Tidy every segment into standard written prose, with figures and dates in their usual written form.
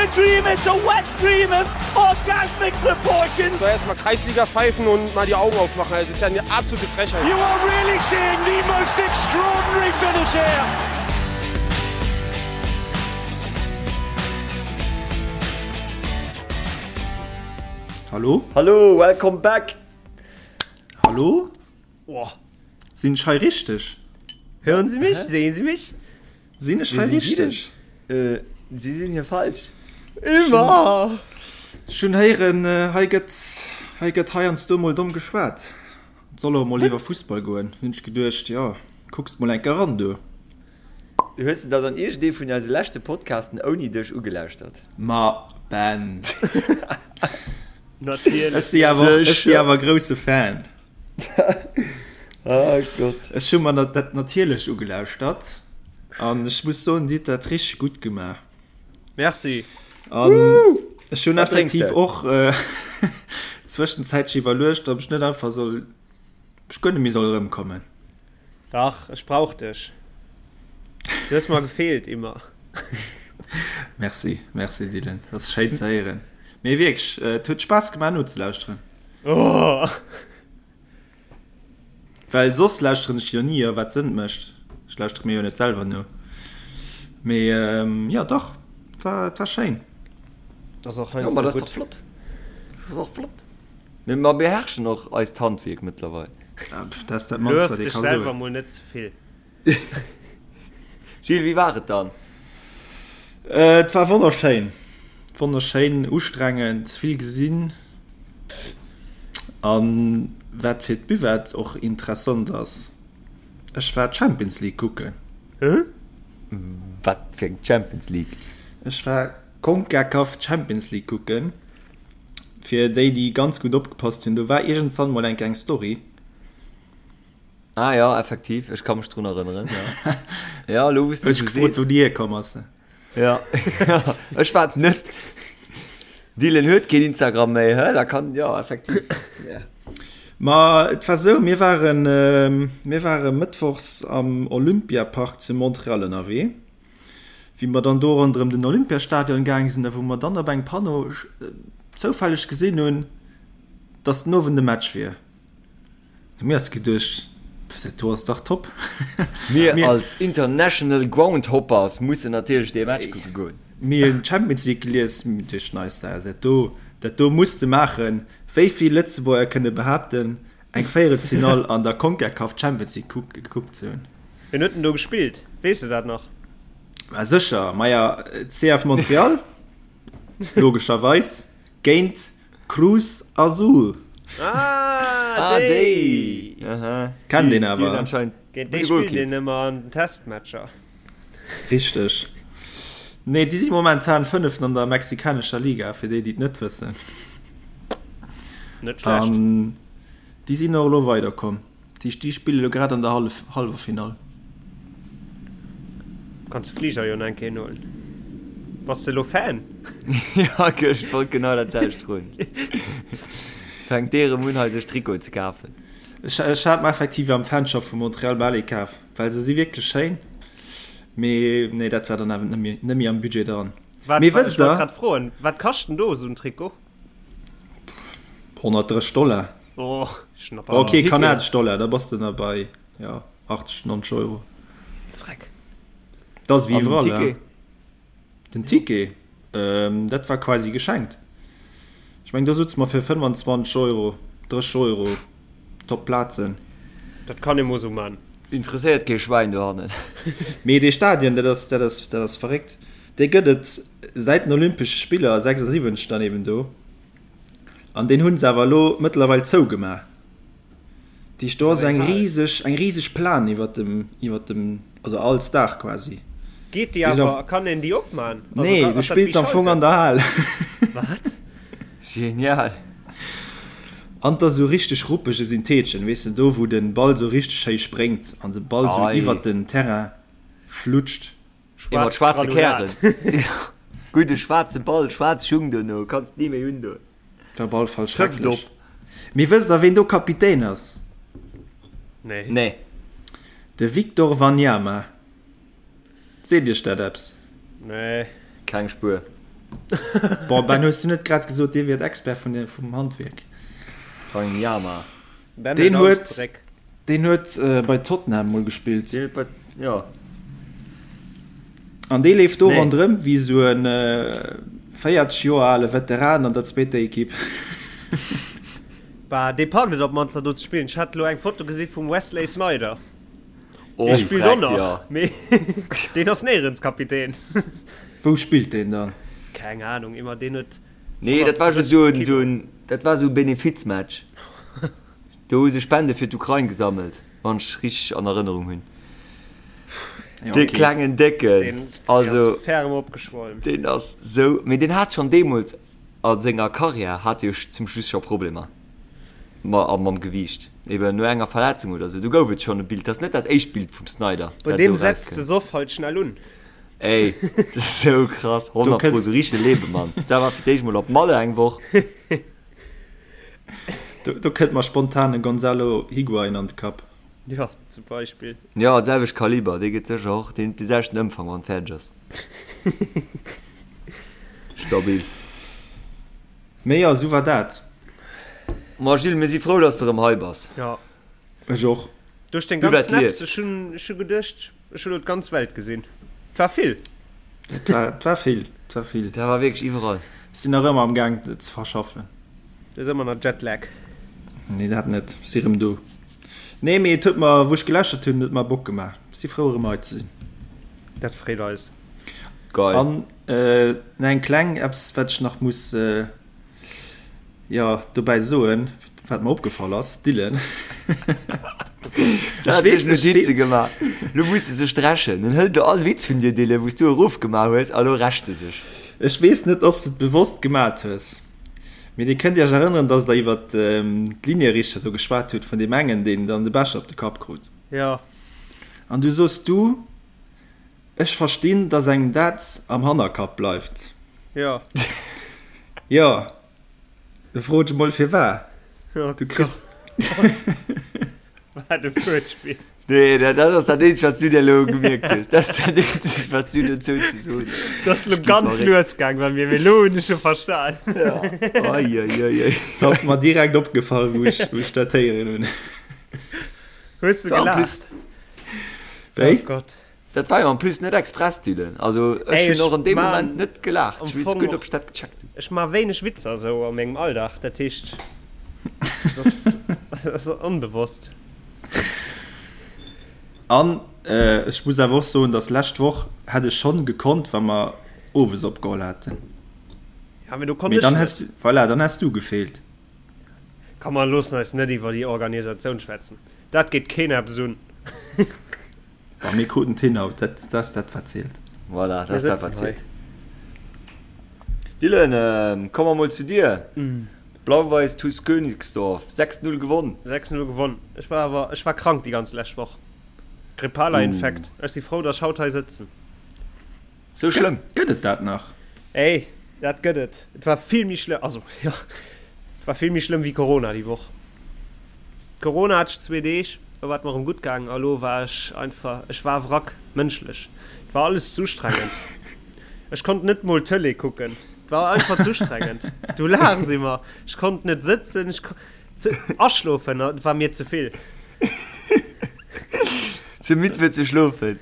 a dream, it's a wet dream of orgasmic proportions. Soll erstmal Kreisliga pfeifen und mal die Augen aufmachen. Das ist ja eine absolute Frechheit. You are really seeing the most extraordinary finish here. Hallo? Hallo, welcome back! Hallo? Oh. Sinn ech hei richteg? Hören Sie mich? Sehen Sie mich? Sinn ech hei richteg? Äh, Sie sinn hier falsch. Immer! Ech hunn héieren, hei gëtt, hei gëtt heiansdo mol domm geschwat. Et soll och mol iwwer Fussball goen. Hunn ech geduecht, jo, kucks mol enker eran do. Hues de der dann iergendee vun eise leschte Podcasten ouni dech ugelauschtert? Ma Ben. Natierlech. Ech si awer, ech si awer grousse Fan. Oh Gott. Ech hu mer dat natierlech ugelauschtert an ech muss soen, Dir hutt dat richteg gutt gemaach. Merci. An ech hunn effektiv och zwëschenzäitlech iwwerluecht, ob ech net einfach soll, ob ech guer net méi soll erëmkommen. Dach, ech brauch dech. Du hues mer gefeelt, immer. Merci, merci Dylan, dat ass schéin ze héieren. Mee wierklech, et huet Spaass gemaach nozelauschteren. Oh. Well soss lauschteren ech jo ni, wat Sënn mécht. Ech lauschtere mir jo net selwer no. Mee jo dach, et war, et war schéin. Dat ass och Jo, heiansdo ma dat ass gutt. dach flott. Dat ass och flott. Mee mer beherrschen och eist Handwierk mëttlerweil. Ah, pff, dat ass dat mannst, Luef wat ee dech ka selwer soen. mol net ze vill. Gilles, wéi war et dann? Et war wonnerschéin. Wonnerschéin, ustrengend, vill gesinn. An wat fir d'Buvette och interessant ass, ech war d'Champions League kucken. Hä? Wat fir eng Champions League? Ech war Concacaf Champions League kucken. Fir déi, déi ganz gutt opgepasst hunn, do war iergendwann mol eng kleng Story. Ah ja, effektiv, ech ka mech drun erënneren, ja. Ja, elo wou s de Ech esou gefrot, sees. wou déi hierkomm ass. Ja, ech war et net. Dylan huet keen Instagram méi, hä? Da kann, ja, effektiv. Ja. Ma et war esou, mir waren, mir ware mëttwochs am Olympiapark zu Montreal ënnerwee. Wéi mer dann do ronderëm den Olympiastadion gaang sinn a wou mer dann op engem Panneau zoufälleg gesinn hunn, dass den Owend e Match wier. Hu mir eis geduecht, dat do ass dach top. Mir als International Groundhoppers mussen natierlech dee Match kucke goen. Mir hunn d'Champions League gelies, mir duechten eis, dat do, dat do muss de maachen. Wéi vill Lëtzebuerger kënne behaapten, eng Véierelsfinall an der Concacaf Champions League gekuckt ze hunn? Wien huet denn do gespillt? Weess de dat nach? Ma sécher, maja CF Montreal, logescherweis, géint Cruz Azul. Ah, déi! Aha. Kennt een awer. Géint déi spillt een ëmmer an den Testmatcher. Richteg. Nee, déi si momentan Fënneften an der mexikanescher Liga, fir déi, déi et net wëssen. Net schlecht. An déi sinn och elo weiderkomm. Déi, déi spille lo grad an der Hallef, Halleffinall. Kanns de Fliger jo nach eng Kéier nohuelen. Bass de elo Fan? Ja, ech wollt genau dat selwecht froen. Fänkt dee erëm un hei sech Trikoten ze kafen? Ech, ech hat mer effektiv am Fanshop vu Montreal bal ee kaf, well se si wierklech schéin. Mee nee, dat war dann awer net méi, net méi am Budget dran. Wat, Mee wat, wësst ech wollt der? grad froen, wat kascht denn do esou en Trikot? 130 Dollar. Oh, Schnapper. Ok, Ticket. kanadesch Dollar, da bass de nach bei ja, 80, 90 Euro. Freck. Dat ass wéi An den iwwerall, Ticket? ja. Den Ticket, ähm, dat war quasi geschenkt. Ech meng, do sutze mer fir 25 Euro, 30 Euro top Plazen. Dat kann ee mol sou man. Interesséiert kee Schwäin dohannen. Mee dee Stadion, dat ass, dat ass, dat ass verréckt. Dee gëtt et säit den Olympesche Spiller 76 dann eben do. An deen hunn se awer elo mëttlerweil zougemaach. Dat heescht, do ass eng riseg, eng riseg Plan iwwer dem, iwwer dem, also als Daach quasi. Geet déi awer, kann een déi opman? Nee, du spills am Fong an der Hal. Wat? Genial. An 't ass esou richteg ruppege Syntheetchen, weess de, do wou de Ball esou richteg schéi spréngt an de Ball esou iwwer den Terrain flutscht. Ee mat schwaarze Kären. Gudde schwaarze Ball, schwaarz Schung dono, kanns ni méi undoen. War op alle Fall schrecklech. Mee wësst der ween do Kapitän ass? Nee. Nee. De Victor Wanyama. Seet iech dat eppes? Nee. Keng Spuer. Bon, Ben, hues du net grad gesot, dir wiert Expert vun de, vum Handwierk? Wanyama. Ben Deen huet alles huet, zeréck. deen huet bei Tottenham mol gespillt. Deen huet bei, jo. An dee leeft do Nee. ronderëm wéi esou e 40 Joer ale Veteran an der zweeter Ekipp. Bah, dee packt et op d'mannst da do ze spillen. Ech hat elo eng Foto gesi vum Wesley Sneijder. Oh, Dee spillt och Dreck, nach, jo. mee deen ass néierens Kapitän. Wou spillt deen dann? Keng Ahnung, immer deen huet Nee, dat war just esou en, esou en, dat war esou e Benefizmatch. Do hu se Spende fir d'Ukrain gesammelt, wann ech richteg an Erënnerung hunn. Ja, Dee okay. klengen Décken, deen, deen also ass ferm opgeschwollen. deen ass sou, mee deen hat schonn deemools a senger Karriär hat e jo zum Schluss scho Problemer ma a mam Gewiicht, eben no enger Verletzung oder sou. Do gouf et schonn e Bild, dat ass net dat éischt Bild vum Sneijder, Bei dat deem esou setzt de erauskënnt. Soff halt schnell un. Ey, dat ass sou krass, Do 100 kënnt pro, sou richtege Lebemann. Dat war fir d'éischt mol op Malle eng Woch. Do, do kënnt mer spontan e Gonzalo Higuain an de Kapp. Jo, zum Beispill. Jo, d'selwecht Kaliber, dee gëtt sécher och, deen huet de selwechten Ëmfang, wann en fäerdeg ass. Stabil. Mee jo, esou war dat. Ma Gilles, mir si frou, dass de erëm hei bass. Jo. Ech och. Duerch deng Du ganz wat Snaps, lieft. ech hunn, ech hu geduecht, ech hu lo d'ganz Welt gesinn. Et war vill. Et war, et war vill, et war vill. Dat war wierklech iwwerall. Ech sinn nach ëmmer am Gaang, et ze verschaffen. Du hues ëmmer nach Jetlag. Nee, dat net. Ech si rëm do. Nee, mee et huet mer, wou ech geläschert hunn, huet mer Bock gemaach. Ech si frou, erëm hei ze sinn. Dat freet eis. Geil. An nach eng kleng eppes, wat ech nach muss, jo, dobäi soen, wat mer opgefall ass, Dylan. Ech weess net, Notize gemaach. Lo muss e sech dreschen. En hëlt elo all Witz vun dir, Dylan, wou s du erofgemaach hues, a lo rächt e sech. Ech weess net, ob s de et bewosst gemat hues, mee dir kënnt iech erënneren, dass der iwwer d'Linierichter do geschwat hutt, vun deem engen, deen dann de Becher op de Kapp krut. Jo. An du sos du, Ech verstinn, dass engem dat am Hannerkapp bleift. Jo. Jo, da fro ech emol firwat. Oh Du kriss. Wat e Fuertspill. Nee, dat ass dat eenzegt, wat s du dir elo gemierkt hues. Dat ass dat eenzegt, wat s du dozou ze soen hues. Dat ass elo ganz lues gaang bei mir, mee elo hunn ech e verstan. Ja. Oi, oi, oi, oi. Dat ass mer direkt opgefall, wou ech, wou ech dat héieren hunn. Hues du gelaacht? Wéi? Oh Gott. Dat war jo en plus net express, Dylan. Also ech hunn och an deem Moment net gelaacht. Ech weess guer net, ob ech dat gecheckt hunn. Ech maache wéineg Witzer esou a mengem Alldag, dat heescht, dat ass onbewosst. An ech muss awer och soen, datt lescht Woch hätt ech schonn gekonnt, wa mer owes opgeholl hätten. Ja, mee do konnt Mee ech dann net. häss du, voilà, dann häss du gefeelt. Komm, mer loossen eis net iwwer déi Organisatioun schwätzen. Dat geet keen eppes un. Bon, mir kruten d'hin haut, dat ass dat wat zielt. Voilà, dat ass dat wat zielt. Dylan, komme mer mol zu dir. Blau-Weiß TuS Königsdorf, 6, 0 gewonn. 6, 0 gewonn. Ech war awer, ech war krank déi ganz lescht Woch. Grippaler Infekt. Ech si frou, dass ech haut hei sëtzen. Sou schlëmm? Gëtt et dat nach? Ey, dat gëtt et. Et war vill méi schlëmm, also jo, et war vill méi schlëmm wéi Corona déi Woch. Corona hat ech zwee Deeg, do war et mer erëm gutt gaangen a lo war ech einfach, ech war Wrack, mënschlech. Et war alles z'ustrengend. Ech konnt net mol Tëlee kucken. Et war einfach z'ustrengend. Du laachs ëmmer. Ech konnt net sëtzen, ech kon, ze, aschlofen war mir ze vill. Ze midd fir ze schlofen.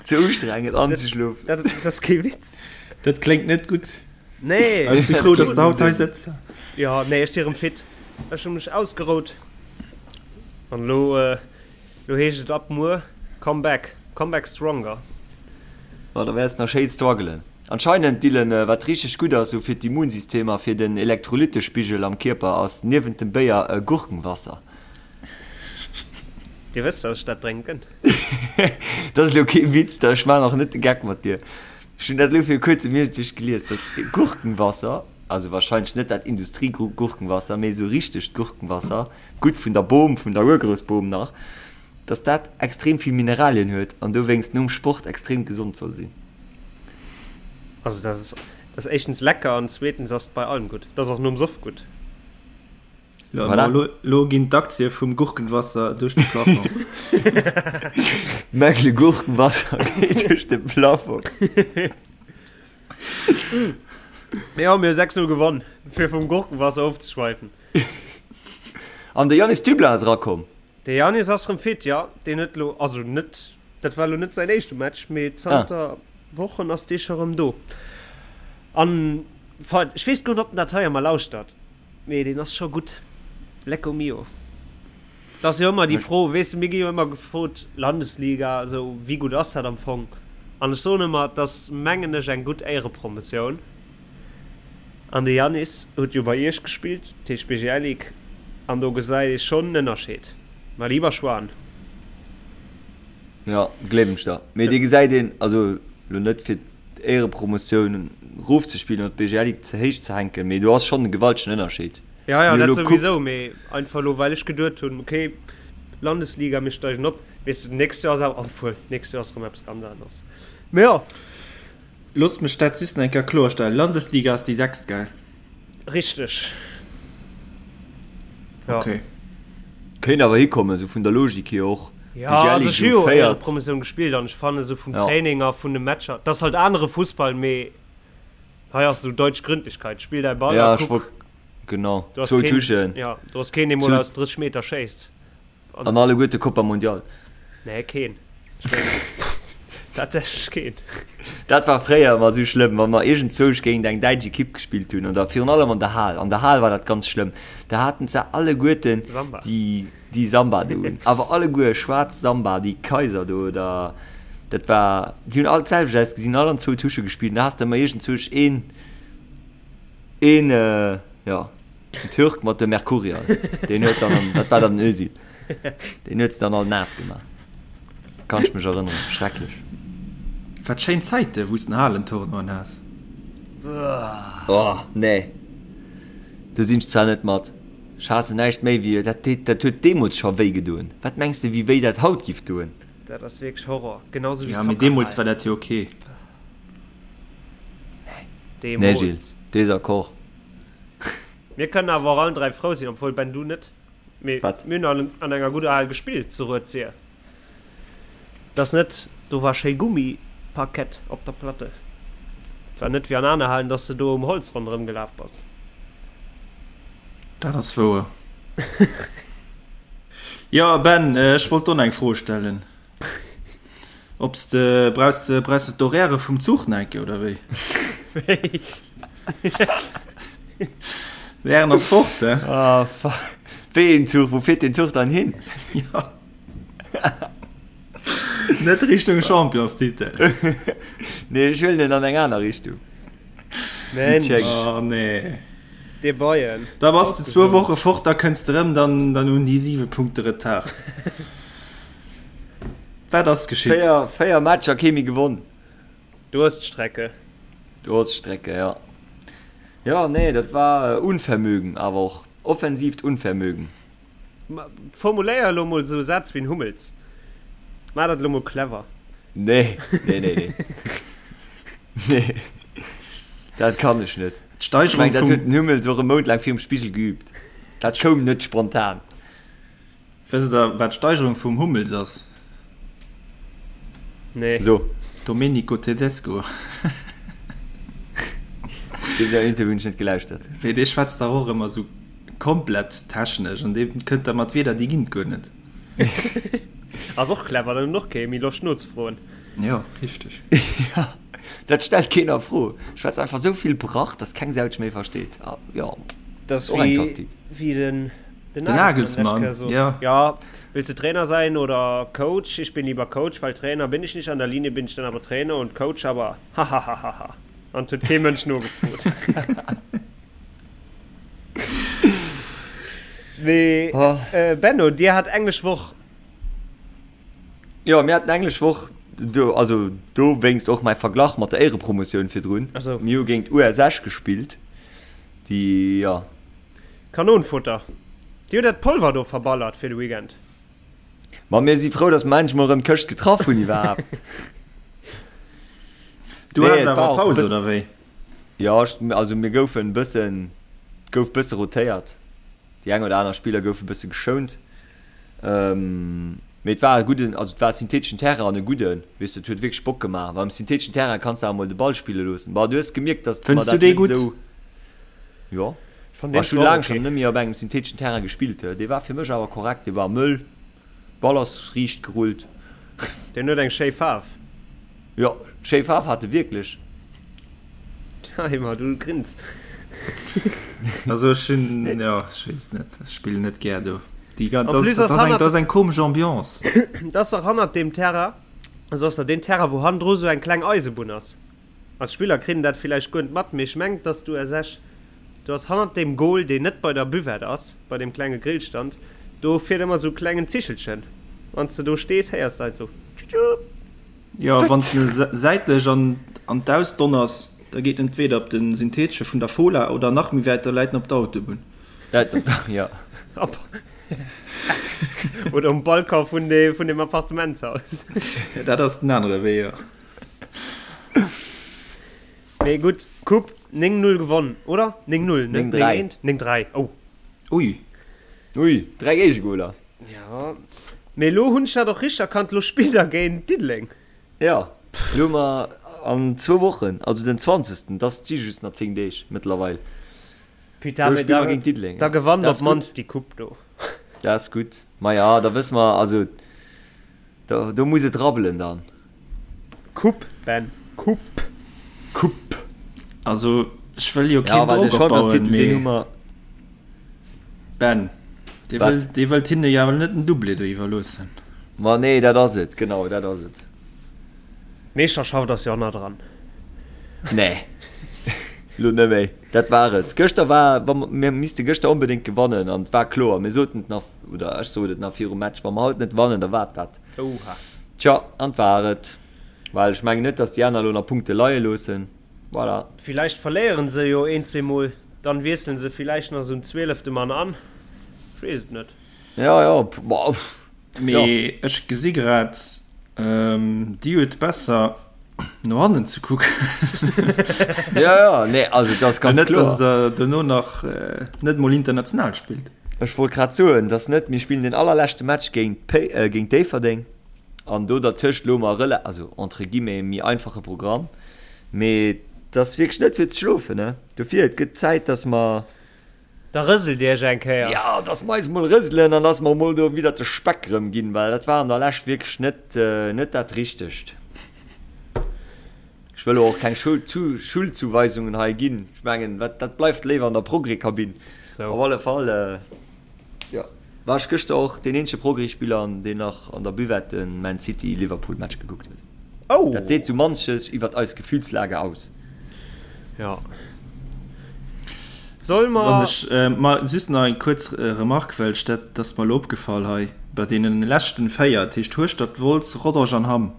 Ze ustrengend anzeschlofen. Dat, dat ass kee Witz. Dat kléngt net gutt. Nee. Ech si frou, dass de haut hei sëtz. Jo, nee, ech si erëm fit. Ech hu mech ausgerout. An elo, elo heescht et ab muer Come back, come back stronger. Ma da wäerts nach schéi struggelen. Anscheinend, Dylan, wat richteg gutt ass sou fir d'Immunsystem a fir den Elektrolyttespigel am Kierper ass niewent dem Béier Gurkenwasser. Dir wësst, dass ech dat drénken. Dat ass elo kee Witz, ech maachen och net de Geck mat dir. Ech hunn dat elo viru kuerzem iergendwéi gelies, dass Gurkenwasser, also wahrscheinlech net dat Industriegurkenwasser, mee esou richtegt Gurkenwasser, gutt vun der Bom, vun der Urgroussbom nach, dass dat extrem vill Mineralien huet an dowéinst nom Sport extrem gesond soll sinn. Also dat ass, dat ass éischtens lecker an zweetens ass et bei allem gutt. Dat ass och nom Soff gutt. Voilà. Lo, lo ginn d'Aktie vum Gurkenwasser duerch de Plafond. Mäckle Gurkenwasser geet duerch de Plafond. Mee jo, mir hu 6, 0 gewonn, fir vum Gurkenwasser ofzeschweifen. An de Yanis Dublin ass erakomm. De Yanis ass rëm fit, jo. Deen huet elo, also net, dat war elo net säin éischte Match, mee zanter Wochen ass dee scho rëm do. An, enfin, ech weess guer net, ob en dat hei ëmmer lauschtert, mee deen ass scho gutt. Lecco mio. Et ass jo ëmmer déi Fro, weess de, mir gi jo ëmmer gefrot, Landesliga, esou, wéi gutt ass dat am Fong? An ech soen ëmmer, et ass, mengen ech, eng gutt Éierepromotioun. An de Yanis huet jo bei iech gespillt, dat heescht BGL Ligue, an do gesäit ee schonn en Ënnerscheed. Mein lieber Schwan. Jo, gleewen ech der. Mee dee gesäit een, also lo net fir d'Éierepromotioun rofzespillen oder d'BGL Ligue ze héich ze hänken, mee do ass schonn e gewaltegen Ënnerscheed. Ja, ja, dat souwisou, mee einfach elo well ech geduet hunn, okay, Landesliga, mir steigen op, weess de, d'nächst Joer ass awer, obwuel, d'nächst Joer ass erëm eppes ganz aneres. Mee jo. Loosst mech dat just nach eng Kéier kloerstellen, Landesliga ass déi sechst, gell? Richteg, jo. Okay. Kéint awer hikommen, esou vun der Logik hier och. Jo, also ech hu jo Éierepromotioun gespillt an ech fannen esou vum Training a vun de Matcher, et ass halt anere Fussball, mee hei ass esou deutsch Gründlichkeit, spill däi Ball a kuck. Genau, zwou Touchen. Jo, do ass keen, dee mol aus 30 Meter schéisst. An alleguerte Copa Mundial. Nee, keen. Ech mengen, tatsächlech keen. Dat war fréier ëmmer esou schlëmm, wa mer iergendzwousch géint eng däitsch Ekipp gespillt hunn, oder virun allem an der Hal. An der Hal war dat ganz schlëmm. Da haten se alleguerten Samba. déi, déi Samba do un. Awer alleguer schwaarz Samba, déi Kaiser do, oder dat war, déi hunn all d'selwecht ausgesinn, all an zwou Tusche gespillt. An da has de ëmmer iergendzwousch een, een, jo. Den Türk mat dem Mercurial, deen huet dann, an, dat war dann den Özil, deen huet se dann all naass gemaach. Kann ech mech erënneren, schrecklech. Wat schéin Zäite wou s den Halentournoien has. Oh nee, do sinn ech zwar net mat. Ech haassen näischt méi wéi, dat deet, dat huet deemools scho wéi gedoen. Wat mengs de wéi wéi dat haut giff doen? Dat ass wierklech Horror, genau sou wéi Ja, mee deemools war dat jo ok. Nee Gilles, Désaccord. Mir kënnen awer och allen 3 frou sinn, obwuel Ben du net, mee mir hunn an an enger gudder Hal gespillt zu Rued-Sir. Et ass net, do war schéi Gummiparkett op der Platte. Et war net wéi an aner Halen, dass de do um Holz ronderëm gelaf bass. Dat ass wouer. Jo Ben, ech wollt och nach eng Fro stellen. Obs de brauchs de brauchs de d'Horaire vum Zuch nach eng Kéier oder wéi? Wéi? Wären ass fort, he? Ah fuck. Wéi een Zuch? Wou fiert deen Zuch dann hin? Jo. Net Richtung Championstitel. Nee, ech huelen en an eng aner Richtung. Mensch. Oh nee. Dee Bayern. Da bass de zwou Woche fort, da kënns de rëm, dann dann hunn déi 7 Punkte Retard. Wat ass geschitt? 4, 4 Matcher kee méi gewonn. Durststrecke. Durststrecke, ja. Ja, nee, dat war Unvermögen, awer och offensiivt Unvermögen. Formuléier elo mol esou Sätz wéi en Hummels. Maach dat elo mol clever. Nee, nee, nee, nee. Nee, dat kann ech net. D'Steigerung vum. Ech mengen, dat huet den Hummels och e Mount laang virum Spigel geübt. Dat koum net spontan. Wësst der wat d'Steigerung vum Hummels ass? Nee. So. Domenico Tedesco. Deen Interview hunn ech net gelauschtert. Wéi dee schwätzt dach och ëmmer sou komplett technesch an dee kënnt da mat Wieder déi ginn et guer net. Ass och clever, dann hunn och kee méi Loscht nozefroen. Jo, richteg. Ja, dat stellt keen a Fro. Schwätzt einfach sou vill Brach, dass keng Sau dech méi versteet. Ah, jo, Dat ass och eng wéi Taktik. wéi den Den Den Nagelsmann, Nagelsmann, ja. Ja, willst du Trainer sein oder Coach? Ich bin lieber Coach, weil Trainer bin ich nicht, an der Linie bin ich dann aber Trainer und Coach aber hahahaha. An et huet kee Mënsch nogefrot. Mee Benno, dir hat englesch Woch. Jo, mir haten englesch Woch, do, also dowéinst och mäi Verglach mat der Éierepromotioun virdrun. Ach sou. Mir hu géint US Esch gespillt, déi, jo. Kanonfutter. Dir hutt dat Polver do verballert fir de Weekend. Ma mir si frou, dass mer endlech mol erëm d'Këscht getraff hunn iwwerhaapt. Du Nee, has et war awer och e Paus, bëssen, oder wéi? jo, ech, also mir goufen e bëssen, et gouf bësse rotéiert. Déi eng oder aner Spiller goufe bësse geschount. Mee et war e gudden, also et war e syntheteschen Terrain an e gudden, weess de, et huet wierklech Bock gemaach. Well um syntheteschen Terrain kanns de awer mol de Ball spille loossen. Bon, du hues gemierkt, datt mer Fënns du dat dee net gutt? esou, jo. Ech fann deen Ech hunn zwar och laang ok. schonn net méi op engem syntheteschen Terrain gespillt. Dee war fir mech awer korrekt, dee war mëll, Ball ass riicht gerullt. Deen huet eng schéi Faarf. Jo, schéi Faarf hat e wierklech. Timer, du grins. Also ech hunn, jo, ech weess et net, ech spillen net gär do. Déi gan, En dat plus ass, ass dat ass eng, hannert, dat ass eng komesch Ambiance. dat ass dach hannert deem Terrain, also ass der deen Terrain, wou hannendru sou eng kleng Eisebunn ass. Als Spiller kritt en dat villäicht guer net mat, mee ech mengen, dass du ersech, du ass hannert deem Goal, deen net bei der Buvette ass, bei deem klenge Grillstand, do fiert ëmmer sou klengen Zichelchen. Wann s de do stees, héiers de halt sou tschutschut. Jo, wann s de säitlech an an d'Aus donners, da geet en entweder op de Synthetesche vun der Fola oder nach méi wäit, da läit en op der Autobunn. Läit op der, jo. Op oder um Balcon vun de vun dem Appartementshaus. Dat ass den anere Wee, jo. Mee gutt, Coupe 9, 0 gewonn, oder? 9, 0, net 9, 9, 1? 9, 3, oh. Ui. Ui, 3 Géigegoler. Ja, mee elo hunn ech dat och richteg erkannt, elo spillt der géint Diddeleng. Ja, elo hu mer an zwou Wochen, also den 20., dat si just nach 10 Deeg mëttlerweil. Putain, mee da, géint Diddeleng. Da gewannt op d'mannst déi Coupe do. Dat ass gutt. Maja, da wësse mer, also do, do muss et rabbelen dann. Coupe, Ben, Coupe. Coupe. Also, ech wëll jo keen Drock opbauen, mee. Ben, dee wëll, dee wëllt hinne jo awer net den Doublé do iwwerloossen. Ma nee, dat ass et, genau, dat ass et. D'Meeschterschaft ass jo nach dran. Nee, lo net méi. Dat war et. Gëschter war, wa mir misste gëschter onbedéngt gewannen an et war kloer, mir soten et nach, oder ech sot et nach virum Match, wa mer haut net wannen, da war et dat. Oha. Tja, an et war et. Well ech mengen net, datt déi aner elo nach Punkte leie loossen. Voilà. Villäicht verléieren se jo een, zweemol, dann wiesselen se villäicht nach esou en zwielefte Mann an. Ech weess et net. Ja, ja, boah, Mee ech gesi grad, Dir huet besser no hannen ze kucken. Ja, ja, nee, also dat ass ganz net, kloer. Net, dass der dono nach net mol international spillt. Ech wollt grad soen, dass net, mir spillen den allerleschte Match géint géint Déifferdeng an do dertëscht elo mer rela, also entre guillemets, méi einfache Programm. Mee et ass wierklech net fir ze schlofen, ne? Dofir, et gëtt Zäit, dass mer. Da rëselt Iech eng Kéier. Jo, dass mer eis mol rëselen an dass mer mol do widder de Speck erëm ginn, well dat war an der Lescht wierklech net, net dat Richtegt. Ech wëll elo och keng Schuldzuweisungen hei ginn. Ech mengen, wat, dat bleift léiwer an der Progrès-Kabinn. Op alle Fall, jo, war ech gëschter och deen eenzege Progrès-Spiller, deen nach an der Buvette de Man City-Liverpool-Match gekuckt huet. Oh! Dat seet sou manches iwwert eis Gefühlslage aus. Ja. Soll mer. Wann ech ma just nach eng kuerz Remarque, well ech dat, dat ass mer elo opgefall hei bei deene leschten 4, dat heescht Hueschtert, Wolz, Rodange an Hamm,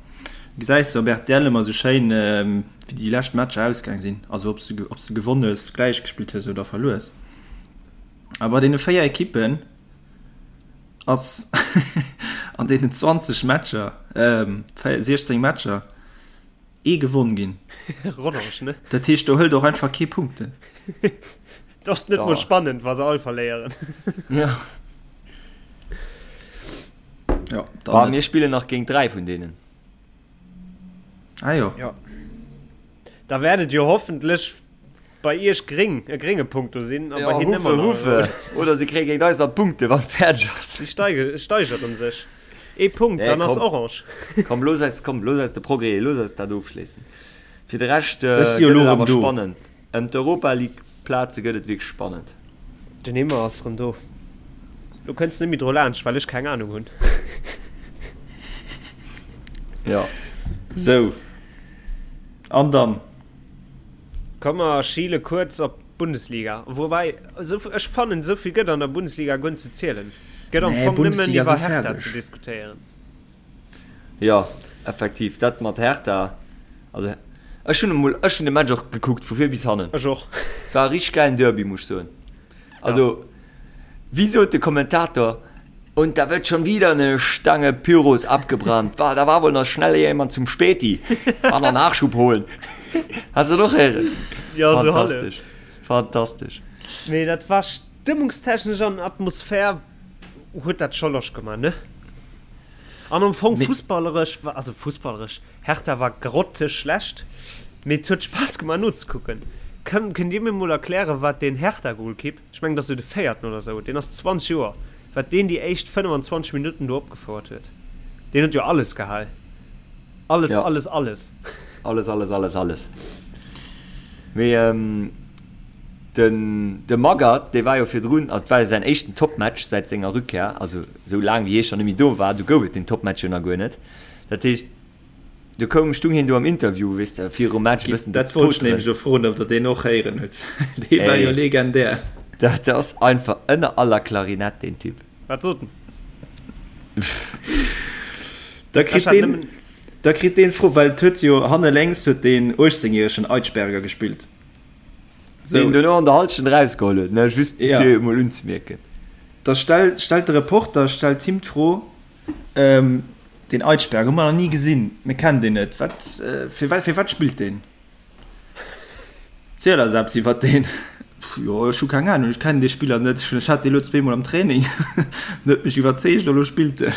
gesäis de op rtl ëmmer sou schéin, wéi déi lescht Matcher ausgaang sinn, also ob s de, ob s de gewonn hues, gläich gespillt hues oder verluer hues. A bei deene 4 Ekippen ass an deenen 20 Matcher, 16 Matcher, ee gewonn ginn. Rodange, ne? Dat heescht, do hëlt och einfach kee Punkten. Dat ass net mol spannend, wa se all verléieren. Ja. Ja, dann net. Mir spillen nach géint 3 vun deenen. Ah jo. Ja. Da wäert et jo hoffentlech Bei iech gréng, e grénge Punkt do sinn a bei hinnen ëmmer nach e rouden. Oder se kréie géint eis nach Punkte wann et fäerdeg ass. Si steigeren sech ee Punkt, dann ass orange. Komm looss eis, komm looss eis de Progrès, looss eis dat ofschléissen. Fir de Rescht gëtt et awer spannend. Ëm d'Europa League Plaze gëtt et wierklech spannend. Den Himmer ass rëm do. Lo kënns net méi dru laanscht, well ech keng Anung hunn. Jo. Sou, an dann? Komm mer schiele kuerz op d'Bundesliga. Woubäi, esou, ech fannen, esou vill gëtt an der Bundesliga guer net ze zielen. Gëtt am Nee, Fong nëmmen Bundesliga iwwer esou Hertha fäerdeg. ze diskutéieren. Jo, effektiv, dat mat Hertha, also ech hunn emol, ech hunn de Match och gekuckt vu vir bis hannen. Ech och. War e richteg gäilen Derby, muss ech soen. Also, wéi sot de Kommentator, Und da wird schon wieder eine Stange Pyros abgebrannt. Bah, da war wohl noch schnell jemand zum Späti. War noch Nachschub holen. Hast du doch héieren? Ja, so halef. Fantastesch. Fantastesch. Mee dat war stëmmungstechnesch an Atmosphär huet dat scho Loscht gemaach, ne? An am Fong fussballeresch, also fussballeresch, Hertha war grotteschlecht, mee et huet Spaass gemaach nozekucken. Kënnt Dir mir mol erklären, wat deen Hertha-Golkipp, ech mengen et ass jo de véierten oder sou, deen ass 20 Joer, wat deen déi éischt 25 Minutten do opgefouert huet? Deen huet jo alles gehal. Alles, ja. alles, alles. Alles, alles, alles, alles. Mee ähm, den, de Magath, dee war jo virdrun, also et war jo säin éischten Topmatch säit senger Rückkehr, also sou laang wéi hie schonn net méi do war, du gouf et den Topmatch jo nach guer net. Dat heescht, du koum, stung hien do am Interview, weess de, virum Match e bëssen Dat wollt ech nämlech elo froen, ob der deen och héieren hutt. Dee war jo legendär. Dat ass einfach ënner aller Klarinett, deen Typ. Wat sot en? Da kritt deen, da kritt deen d'Fro, well et huet jo hanne lénks huet deen 18 järegen Eitschberger gespillt. So. Deen dono an der Halschent erausgeholl huet, ne, just ja. fir emol unzemierken. Da stellt, stellt de Reporter stellt him d'Fro, ähm, den Eitschberg hu mer nach ni gesinn, mir kennen deen net, wat, äh, fir, fir wat spillt deen? Ziel eis eppes iwwer deen. Jo, ech hu keng Ahnung, ech kennen dee Spiller net, ech hat dee lo zweemol am Training, en huet mech iwwerzeegt a lo spillt en.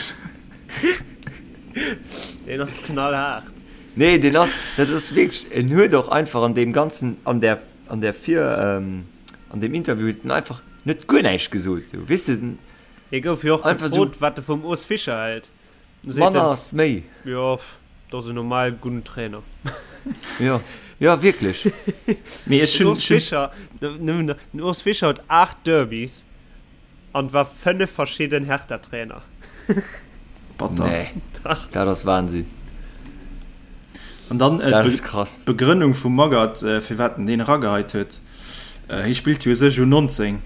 Deen ass knallhaart. Nee, deen ass, dat ass wierklech, en huet och einfach an deem ganzen, an där, an där Vir, an deem Interview huet en einfach net guer näischt gesot, sou, weess de. Hie gouf jo och gefrot, wat e vum Urs Fischer hält. Manner ass méi. Jo, dat ass en normal gudden Trainer. Jo, jo wierklech. Mee ech Den hunn, Urs Fischer, nëmmen den Urs Fischer huet 8 Derbys an war 5 verschidden Hertha-Trainer. Batter. Nee, Dach. dat ass Wahnsinn. An dann Dat ass krass. d'Begrënnung vum Magath, firwat en deen erageheit huet. Hie spillt jo u sech U19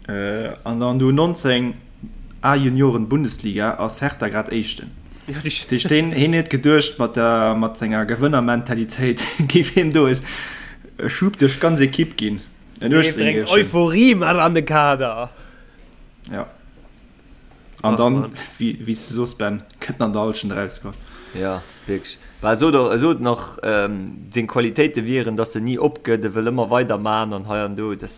an an der U19 A-Junioren Bundesliga ass Hertha grad Éischten. Dat heescht hien huet geduecht mat der mat senger Gewënnermentalitéit géif hien do e Schub duerch d'ganz Ekipp ginn. En Dee bréngt 18-Jähregen. Euphorie mat an de Kader. Ja. An Ach dann, Mann. wéi wéi s de soos Ben, kënnt en an der Hallschent erauskomm. Ja, wierklech. Bah, e sot och, e sot nach, seng Qualitéite wieren, datt en ni opgëtt, e wëll ëmmer weider man an hei an do. Dat,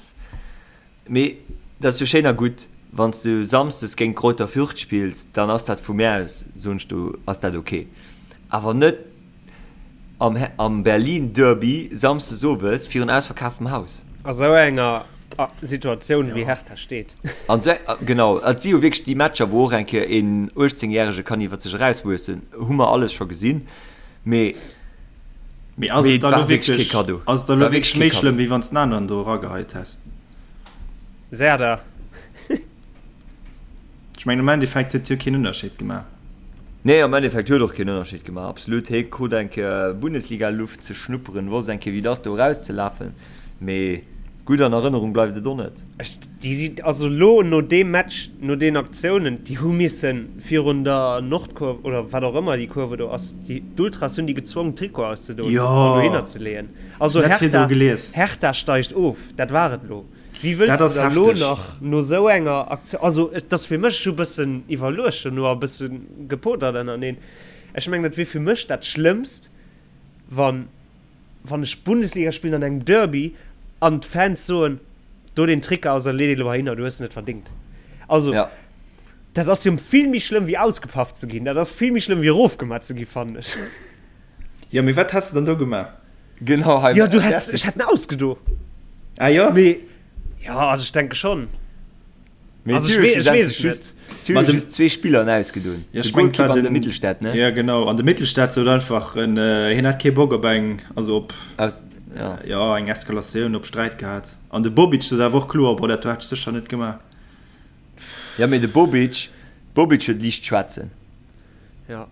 mee dat ass jo schéin a gutt, wann s du samsdes géint Greuther Fürth spills, dann ass dat vu mär aus, soen ech do, ass dat ok. Awer net am, am Berlin-Derby samsdes owes virun ausverkaftem Haus. A sou enger Situatioun wéi Hertha steet. An sou, genau, et si jo wierklech déi Matcher, wou och eng Kéier een 18 Järege kann iwwer sech erauswuessen, hu mer alles scho gesinn, mee Mee ass mee et et da war lo wierklech kee wierklech, Kaddo. ass et da lo War wierklech wierklech kee méi Kaddo. schlëmm, wéi wann s den aneren do erageheit häss? Serdar. Ech mengen am Endeffekt huet jo keen Ënnerscheed gemaach. Nee, am Endeffekt huet och keen Ënnerscheed gemaach, absolut. Hie krut eng Kéier Bundesliga-Luft ze schnupperen, wosst eng Kéier wéi et ass do erauszelafen, mee gutt an Erënnerung bleift et och net. Ech, déi si, also elo no deem Match, no deenen Aktiounen, déi hu missen virun der Nordkurve oder wat och ëmmer déi Kurve do ass, déi, d'Ultras hunn déi gezwongen d'Trikote auszedoen Jo, an dohinner ze leeën. Also dat virdru Hertha, gelies. Hertha steigt of, dat war et elo. Wéi wëlls Dat de ass da lo hefteg. nach no sou enger Aktioun, also et ass fir mech, ech hu bëssen iwwerluecht dono a bësse gepotert ënnerteneen, ech mengen dat wier fir mech dat Schlëmmst, wann wann ech Bundesliga spillen an engem Derby an d'Fans soen, do deen Trikot aus a lee dee lo heihinner, du hues en net verdingt. Also Ja. dat ass jo vill méi schlëmm wéi ausgepaff ze ginn, dat ass vill méi schlëmm wéi erofgemat ze gi fannen ech. Jo, mee wat häss de dann do gemaach? Genau, hei. Jo, du hätts, ech hätt en ausgedo. Ah jo? Mee, ja, also ech denke schon. Mee Also ech wee, ech weess et net. Si hunn just zwee Spiller en ausgedoen. Ja, De ech mengen, Goalkeeper war an de den Mittelstädt, ne? Ja, genau. An de Mittelstädt sot einfach en, hien hätt kee Bock op eng, also op, Aus, ja. ja, eng Eskalatioun, op Sträit gehat. An de Bobic sot awer och kloer, boah, dat do hätt ech sécher net gemaach. Ja, mee de Bobic, Bobic huet liicht schwätzen. Ja.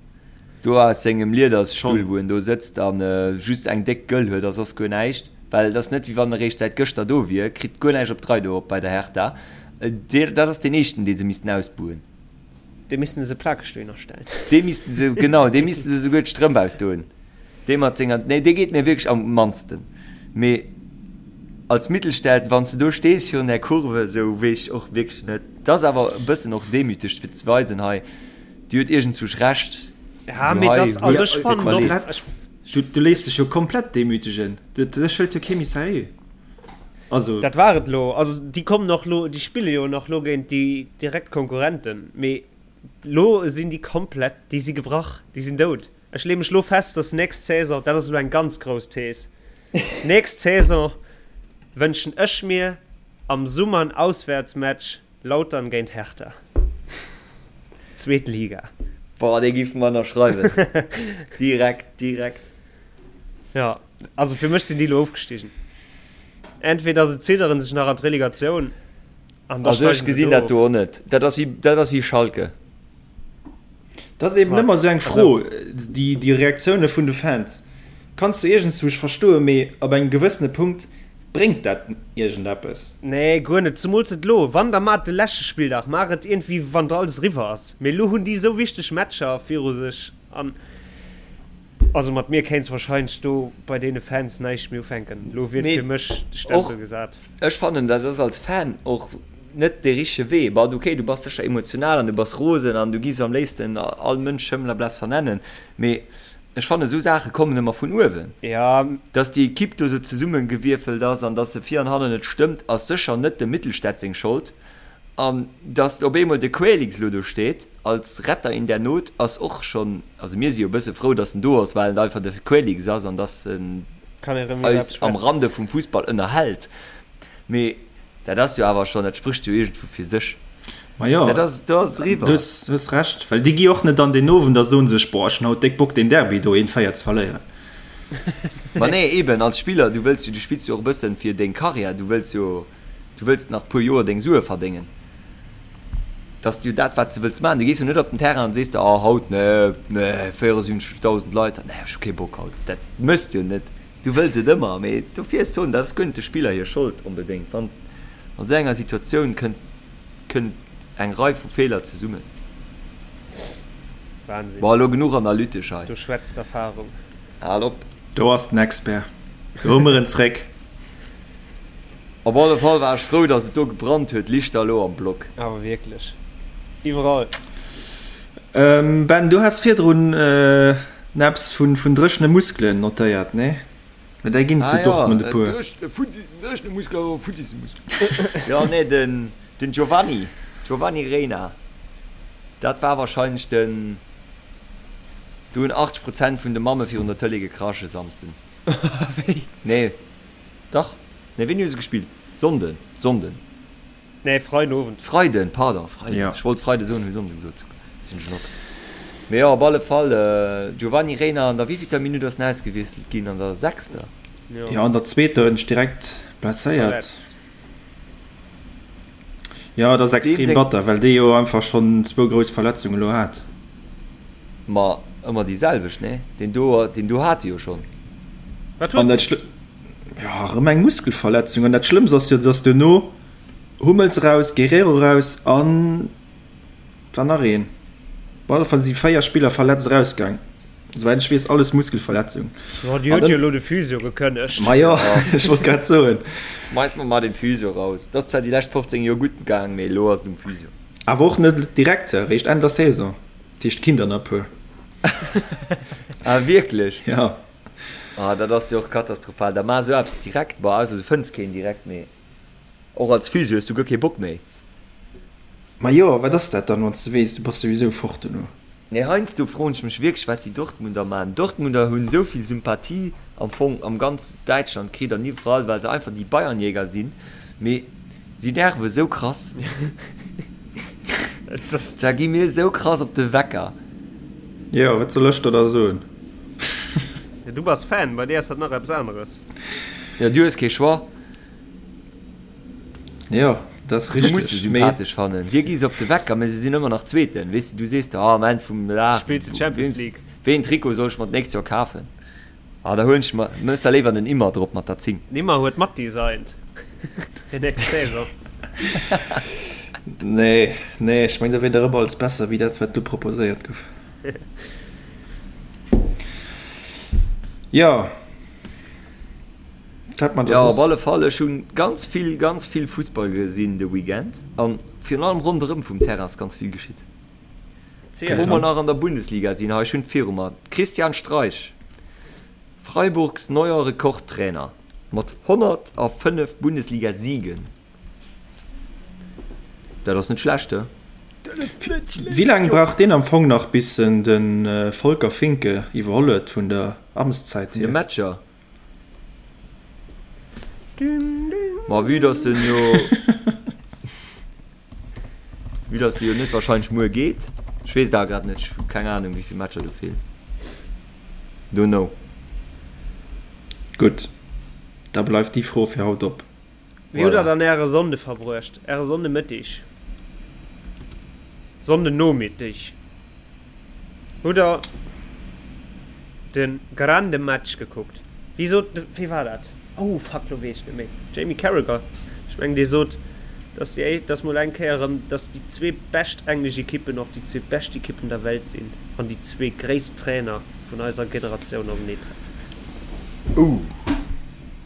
Do aus sengem Liedersstull, Schon. wou en do sëtzt a just eng déck Gëll huet a soss guer näischt, well et ass net, wéi wann e réischt säit gëschter do wier, kritt guer näischt op d'Rei do op bei der Hertha. Dee, dat ass deen éischten, dee se missten ausbuhen. Dee missten se plakeg dohinner stellen. Dee missten se, genau, dee missten se souguer d'Strëmp ausdoen. Dee mat senger, nee, dee geet mir wierklech am mannsten. Mee als Mittelstädt, wann s de do stees virun där Kurve, esou weess ech och wierklech net. Et ass awer e bëssen och demüteg, fir ze weisen, hei, Dir huet iergendzwousch Recht. Ja, mee das, also ech fannen och, Komplett. Du, du léiss dech jo komplett demütegen. Dech hëlt jo kee méi seriö. Also. Dat war et lo. Also déi kommen och lo, déi spille jo nach lo géint déi direkt Konkurrenten. Mee. Lo sinn déi komplett, déi si gebrach, déi sinn dout. Ech leeë mech lo fest, dass nächst Saison, dat ass elo eng ganz grouss Thees, nächst Saison wënschen ech mir am Summer en Auswäertsmatch Lautern géint Hertha. Zweet Liga. Boah, dee giff mer ënnerschreiwen. Direkt, direkt. Jo, also fir mech sinn déi elo ofgestigen. Entweder se zidderen sech nach an d'Relegatioun an da Also ech steigen se gesinn do dat do of. och net. Dat ass wéi, dat ass wéi Schalke. Dat ass eben ëmmer esou eng Fro, déi, déi Reaktioune vun de Fans kanns du iergendzwousch verstoen, mee ab engem gewëssene Punkt bréngt dat iergendeppes. Nee, guer net, zemools net elo. Wann, da maach et de leschte Spilldag, maach et iergendwéi wann alles eriwwer ass. Mee elo hunn déi esou wichteg Matcher viru sech an also mat mir kéints wahrscheinlech do bei deene Fans näischt méi ufänken. Elo wier fir mech de Stempel gesat. Ech fannen, dat ass als Fan och net dee richtege Wee. Bon, okay, du bass sécher emotional an du bass rosen an du giffs am léifsten all Mënsch Schëmmel a Bless vernennen, mee ech fannen, esou Saache kommen ëmmer vun uewen. Jo. Dass déi Ekipp do esou zesummegewierfelt ass an dass se vir an hannen net stëmmt, ass sécher net dem Mittelstädt seng Schold. An dass op eemol de Quaylix elo do steet als Retter in der Not, ass och schonn, also mir si jo e bësse frou, dass en do ass, well en einfach de Quaylix ass an dass en eis am Rande vum Fussball ënnerhält. Mee dat ass jo awer schonn, dat sprécht jo iergendwou fir sech. Ma jo, Dat ass, do ass et eriwwer. Du hues Recht, well déi gi och net an deen Owend a soen sech, Boah, ech hunn haut déck Bock deen Derby do 1, 4 ze verléieren. Ma nee, eben, als Spiller, du wëlls jo, du spills jo och e bëssen fir deng Karriär, du wëlls jo, du wëlls nach puer Joer deng Sue verdéngen. Dat ass jo dat, wat s de wëlls maachen. Du gees jo net op den Terrain an sees der, oh haut, nee, nee, 74.000 Leit, nee, ech hu kee Bock haut. Dat méchs de jo net. Du wëlls et ëmmer, mee dofir ech soen, dat ass guer net de Spiller hir Schold onbedéngt. Wann an esou enger Situatioun kënnt, kënnt eng Rei vu Feeler zesummen. Wahnsinn. Bon, elo genuch analytesch hei. Do schwätzt d'Erfahrung. Hal op. Do ass den Expert. Do hu mer en zréck. Op alle Fall war ech frou, dass et do gebrannt huet, lichterloo am Block. Awer wierklech. Iwwerall. Ben, du has virdrun eppes vun dréchene Muskelen notéiert, nee? Mä där ginn zu Dortmund e puer. Dréchene Muskelen oder futtisse Muskelen? Jo, nee, den Giovanni, Giovanni Reyna, dat war wahrscheinlech den, do hunn 80 Prozent vun de Mamme virun der Tëlee gekrasch e Samsden. Wéi? Nee, dach, nee, wéini hu se gespillt? Sonnden, Sonnden. Nee, Freiden Owend. Freiden, pardon, Freiden. Ja. Ech wollt Freide soen, hu Sonnden gesot. Sinn ech op. Mee jo, op alle Fall, Giovanni Reyna an der wéivillter Minutt ass en ausgewiesselt ginn? An der sechster? Jo. Jo, an der zweeter huet en sech direkt blesséiert. Verletzt. Jo, et ass Deem extrem seng. batter, well dee jo einfach schonn zwou grouss Verletzungen elo hat. Ma ëmmer déi selwecht, nee? Deen do, deen do hat e jo schonn. Wat An huet dat en? Schlë, jo, erëm eng Muskelverletzung. An dat Schlëmmst ass jo, dass duerno Hummels eraus, Guerrero eraus an et war nach een. Op alle Fall si 4 Spiller verletzt erausgaang. Souwäit ech weess alles Muskelverletzung. Jo, déi huet jo elo de Physio gekënnegt. Ma jo, ech wollt grad soen. Schmeiss mer mar den Physio raus. Et ass zwar déi lescht 15 Joer gutt gaang, mee elo ass et um Physio. Awer och net direkt, eréischt Enn der Saison. Dat heescht, et ginn der nach e puer. Ah wierklech? Jo. Ah dat ass jo och katastrophal. Da maach esou eppes direkt. Bon, ausser du fënns keen direkt, mee. Och als Physio hues du guer kee Bock méi. Ma jo, wat ass dat dann, wann s de weess, du bass souwisou fort dono? Nee, heiansdo froen ech mech wierklech, wat déi Dortmunder maachen. Dortmunder hunn esou vill Sympathie am Fong am ganz Däitschland kritt an iwwerall, well se einfach déi Bayernjäger sinn, mee si nerve esou krass. Da gi mir esou krass op de Wecker. Jo, wat soll ech der da soen? Du bass Fan, bei dir ass dat nach eppes aneres. Jo, du hues kee Choix. Jo, dat ass Du muss se richteg, mee. sympathesch fannen. Dir gi se op de Wecker, mä se sinn ëmmer nach Zweeten. Weess de, du sees der, ah, am Enn vum Dag, Spills de Champions League. wéi een Trikot soll ech mer d'nächst Joer kafen? Ah, da huelen ech mer, mëss der léiwer den Immer drop mat der 10. Den Immer huet matdesignt fir nächst Saison. Nee, nee, ech meng, da wier der ëmmer alles besser wéi dat, wat do proposéiert gouf. Jo. Jo, op alle Fall, ech hunn ganz vill, ganz vill Fussball gesinn de Weekend an virun allem ronderëm vum Terrain ass ganz vill geschitt. Wou mer nach an der Bundesliga sinn, hei, ech hunn et viru mer, Christian Streich, Freiburgs neuer Rekordtrainer mat 105 Bundesliga-Siegen. Dat ass net schlecht, he? Wéi laang brauch deen am Fong nach bis en de Volker Finke iwwerholl huet vun der Amtszäit Vun de hier? Matcher? Ma vue dass en jo vue dass e jo net wahrscheinlech muer geet, ech weess et awer grad net, ech hu keng Ahnung wéi vill Matcher do feelen, don't know. Gutt, da bleift déi Fro fir haut op. Wéi hutt der Voilà. dann äre Sonnde verbruecht? Äre Sonndemëttig? Sonndenomiddig? Hutt der de grande Match gekuckt? Wéi sot, wéi war dat? Oh fuck, lo weess ech net méi. Jamie Carragher, ech mengen dee sot, dass déi, dass mol eng Kéier erëm, dass déi zwee bescht englesch Ekippen och déi zwee bescht Ekippen der Welt sinn an déi zwee gréisst Trainer vun eiser Generatioun openee treffen. Ouh.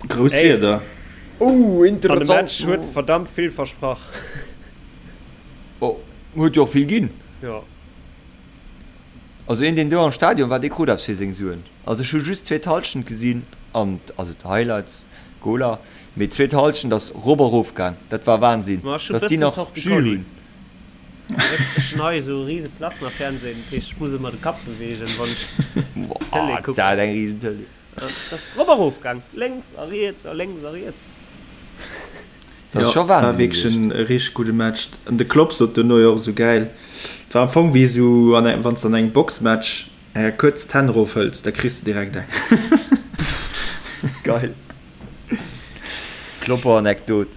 Grouss Ey. Wierder. Ouh, An de interessant. Match huet verdammt vill versprach. Oh, huet jo och vill ginn. Jo. Also een deen do am Stadion war, dee krut eppes fir seng Suen. Also ech hu just d'zweet Halschent gesinn an also d'Highlights, Goler, mee d'zweet Halschent ass rop a rof gaang. Dat war Wahnsinn, Ma ech hunn dass déi bëssen nach Jus Torticolli. hunn. Ech hunn hei esou e rise Plasma-Fernsehen, dat heescht ech muss ëmmer de Kapp beweegen, wann ech d'Tëlee Boah, kucken. dat eng risen Tëlee. Dat ass rop a rof gaang, lénks a riets a lénks a riets. Dat ass Jo, scho war Wahnsinn wierklech gewiescht. en richteg gudde Match. An de Klopp sot duerno jo och esou gäil, et war am Fong wéi esou an engem, wann s de an engem Boxmatch kuerz d'Hänn erofhëls, da kriss de direkt eng. Geil. Klopper-Anekdot.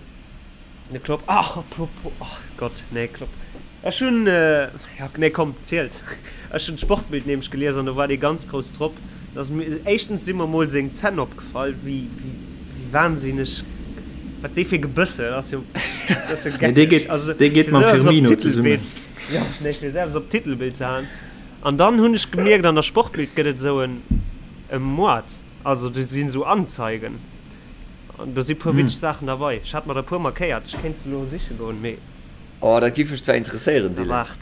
De Klopp, ach apropos, ach Gott, nee Klopp, ech hunn, ja nee komm, zielt, ech hunn d'Sportbild nämlech gelies an do war dee ganz grouss drop, dass mir, éischtens si mer mol seng Zänn opgefall, wéi, wéi, wéi wahnsinneg, wat dee fir Gebëss huet, ass jo, dat ass jo Nee, dee geckeg, geet, also dee geet fir mam esou eppes op Firmino zesummen. d'Titelbild, jo, nee, fir esou eppes op d'Titelbild ze haen. An dann hunn ech gemierkt, an der Sportbild gëtt et esou en, e Moart, also do sinn esou Anzeigen. An do si puer witzeg Saachen derbei. Ech hat mer der puer markéiert. Ech kéint se elo siche goen, mee. Oh, dat giff mech zwar interesséieren, Da Dylan. waart.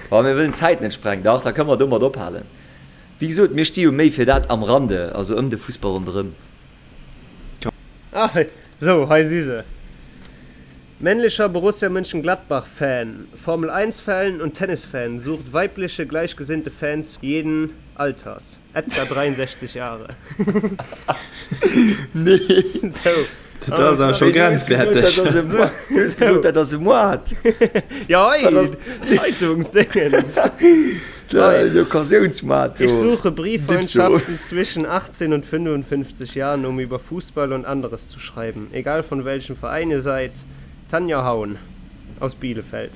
Wa mir wëllen d'Zäit net sprengen. Dach, da kënne mer domat ophalen. Wéi gesot, mir sti jo méi fir dat am Rande, also ëm de Fussball ronderëm. Ah, sou, hei si se. Männlicher Borussia Mönchengladbach-Fan, Formel 1 Fan und Tennis-Fan, sucht weibliche gleichgesinnte Fans jeden Alters. Etwa 63 Jahre. Nee. So. Dat ass awer scho grenzwerteg. Du hues gesot, dat ass e Moart. Ja, hei, Zeitungsdingens. Den Occasiounsmoart do. Ich suche Brieffreundschaften zwischen 18 und 55 Jahren, um über Fußball und anderes zu schreiben. Egal von welchem Verein ihr seid. Tanja Haun aus Bielefeld.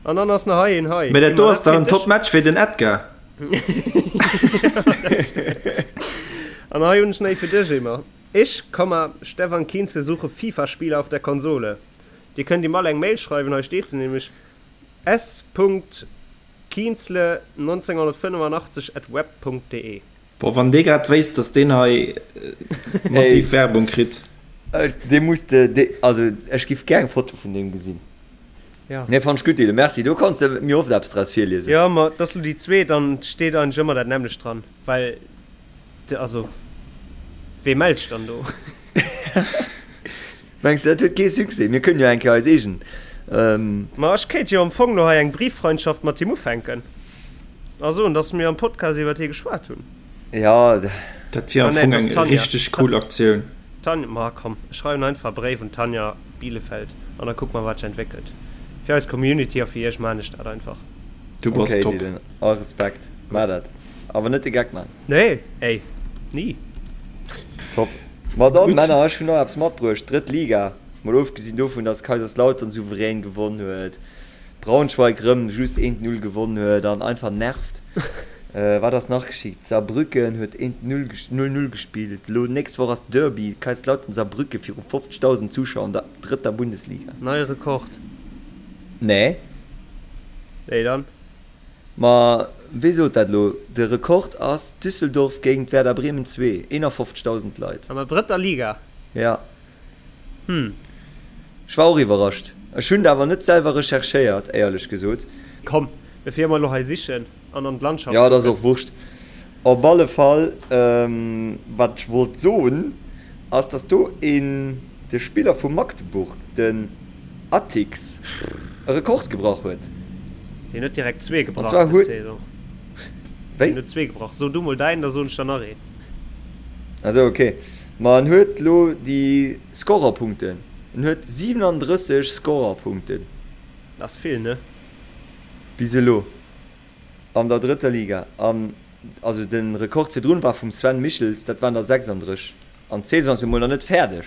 An dann ass nach hei een hei. Mä dat do ass dach en Top-Match fir den Edgar. An hei hunn ech nach ee fir dech, Emer. Ich, Komma, Stefan Kienzle suche FIFA-Spieler auf der Konsole. Dir kënnt ihm all eng Mail schreiwen, hei steet se nämlech, s.kienzle1985 at web.de. Boah, wann dee grad wéisst, dass deen hei massiv Werbung kritt. Dee muss de, also ech giff gär eng Foto vun deem gesinn. Ja. Nee, fand ech gutt, Dylan, merci. Do kanns de mir oft eppes draus virliesen. Jo, ma et ass lo déi zweet an et steet eigentlech ëmmer dat nämmlecht dran, well de, also wee mellt sech dann do? Mengs de, dat huet kee Succès? Mir kënnen jo eng Kéier eis eegen. Ma ech kéint jo am Fong lo hei eng Brieffreundschaft mat him ufänken a soen, dass mir am Podcast iwwert hie geschwat hunn. Ja. Dat wier am Ah nee, Fong et ass eng d'Tanja. richteg cool Aktioun. Tanja, ma komm, ech schreiwen einfach e Bréif un d'Tanja Bielefeld an da kucke mer, wat sech entwéckelt. Fir eis Community a fir iech maan ech dat einfach. Du bass Okay, top. Dylan, all Respekt. Maach dat. Awer net de Geck man. Nee, ey, ni. Top. Ma dann, Gutt. Männer, ech hunn nach eppes matbruecht. Drëtt Liga, mol ofgesinn dovun, dass Kaiserslautern souverän gewonn huet, Braunschweig rëm just 1, 0 gewonn huet an einfach nervt. Wat ass nach geschitt? Saarbrücken huet 1, 0, 0, 0 gespillt. Elo nächst Woch ass Derby, Kaiserslautern-Saarbrücken viru 50.000 Zuschauer an der drëtter Bundesliga. Neie Rekord? Nee. Wéi dann? Ma wéi sot dat elo? De Rekord ass Düsseldorf géint Werder Bremen 2, 51.000 Leit. An der drëtter Liga? Ja. Hm. Ech war och iwwerrascht. Ech hunn et awer net selwer recherchéiert, éierlech gesot. Komm, bevir mer elo hei sichen an an d'Landschaft Jo, et ass kucken. och Wurscht. Op alle Fall, wat ech wollt soen, ass, dass do een, de Spiller vu Magdeburg, den Atix, e Rekord gebrach huet. Deen huet direkt zwee gebrach dës Saison. Wéi? Deen huet zwee gebrach. So du mol däin, da soen ech der nach een. Ah sou, ok. Ma en huet lo déi Scorerpunkten. En huet 37 Scorerpunkten. Dat ass vill, ne? Bis elo an der drëtter Liga. An also de Rekord virdrun war vum Sven Michels, dat waren der 36. An d'Saison ass jo mol nach net fäerdeg.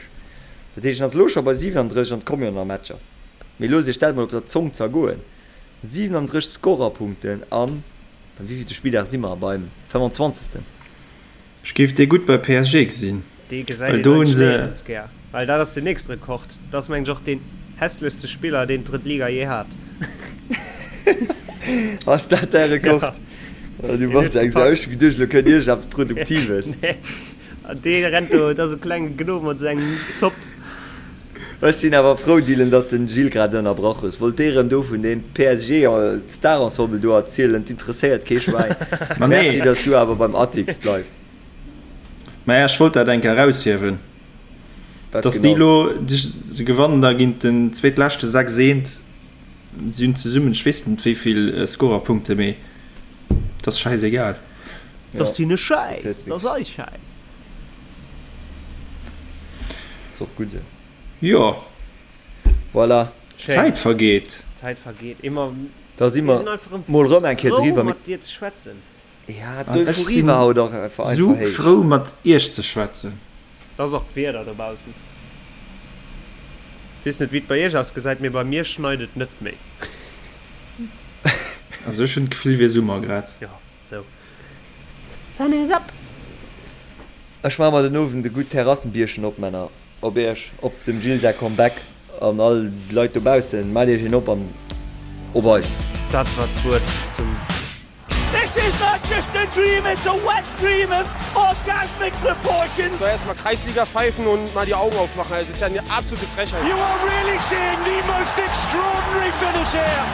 Dat heescht, en ass elo scho bei 37 an et komme jo nach Matcher. Mee loosst iech dat mol op der Zong zergoen, 37 Scorerpunkten an, beim wéivillte Spilldag si mer? Beim 25. Ech géif dee gutt bei PSG gesinn, Dee gesäit well een do hunn eigentlech se. néierens gär, well dat ass den nächste Rekord. Dat ass mengen ech och deen hässlechste Spiller, deen d'drëtt Liga jee hat. Ass dat däi Rekord? Ja. Du bass eng Sau. Ech hu geduecht, elo kënnt iergendeppes Produktives. Nee. An dee rennt do, dat ass e klenge Gnom mat esou engem Zopf. Ech sinn awer frou, Dylan, dass de den Gilles grad ënnerbrach hues. Wollt dee rëm do vun deem PSG Star-Ensemble do erzielen? T'interesséiert kee Schwäin. Ma Merci, nee. dass du awer beim Atix bleifs. Maja, ech wollt dat eng Kéier eraushiewen, Wat dass déi genau? elo, se gewannen da géint den zweetleschte 6 eent, si hunn zesummen, ech weess net wéi vill Scorerpunkte, mee 't ass schäisegal. Dat ass hinne Schäiss, dat ass eis Schäiss. Ass och gutt esou. Jo. Voilà. D'Zäit vergeet. D'Zäit vergeet. Immer. Da si mer mol rëm eng Kéier driwwer. Mir Frou mat dir ze schwätzen. Ja, An ech d'Euphorie sinn war haut och einfach sou héich. frou mat iech ze schwätzen. Et ass och d'Wieder dobaussen. Weess net wéi et bei iech ausgesäit, mee bei mir schneit et net méi. Also ech hunn d'Gefill wier Summer grad. Jo, sou. Sun is up! Ech maache mer den Owend e gutt Terrassenbierchen op, Männer. Op iech, op dem Gilles säi Comeback an all d'Leit dobaussen. Maacht iech een op an op eis! Dat war d'Wuert zum. This is not just a dream, it's a wet dream of orgasmic proportions. Soll erstmal Kreisliga pfeifen und mal die Augen aufmachen, also das ist ja eine absolute Frechheit. You are really seeing the most extraordinary finish here.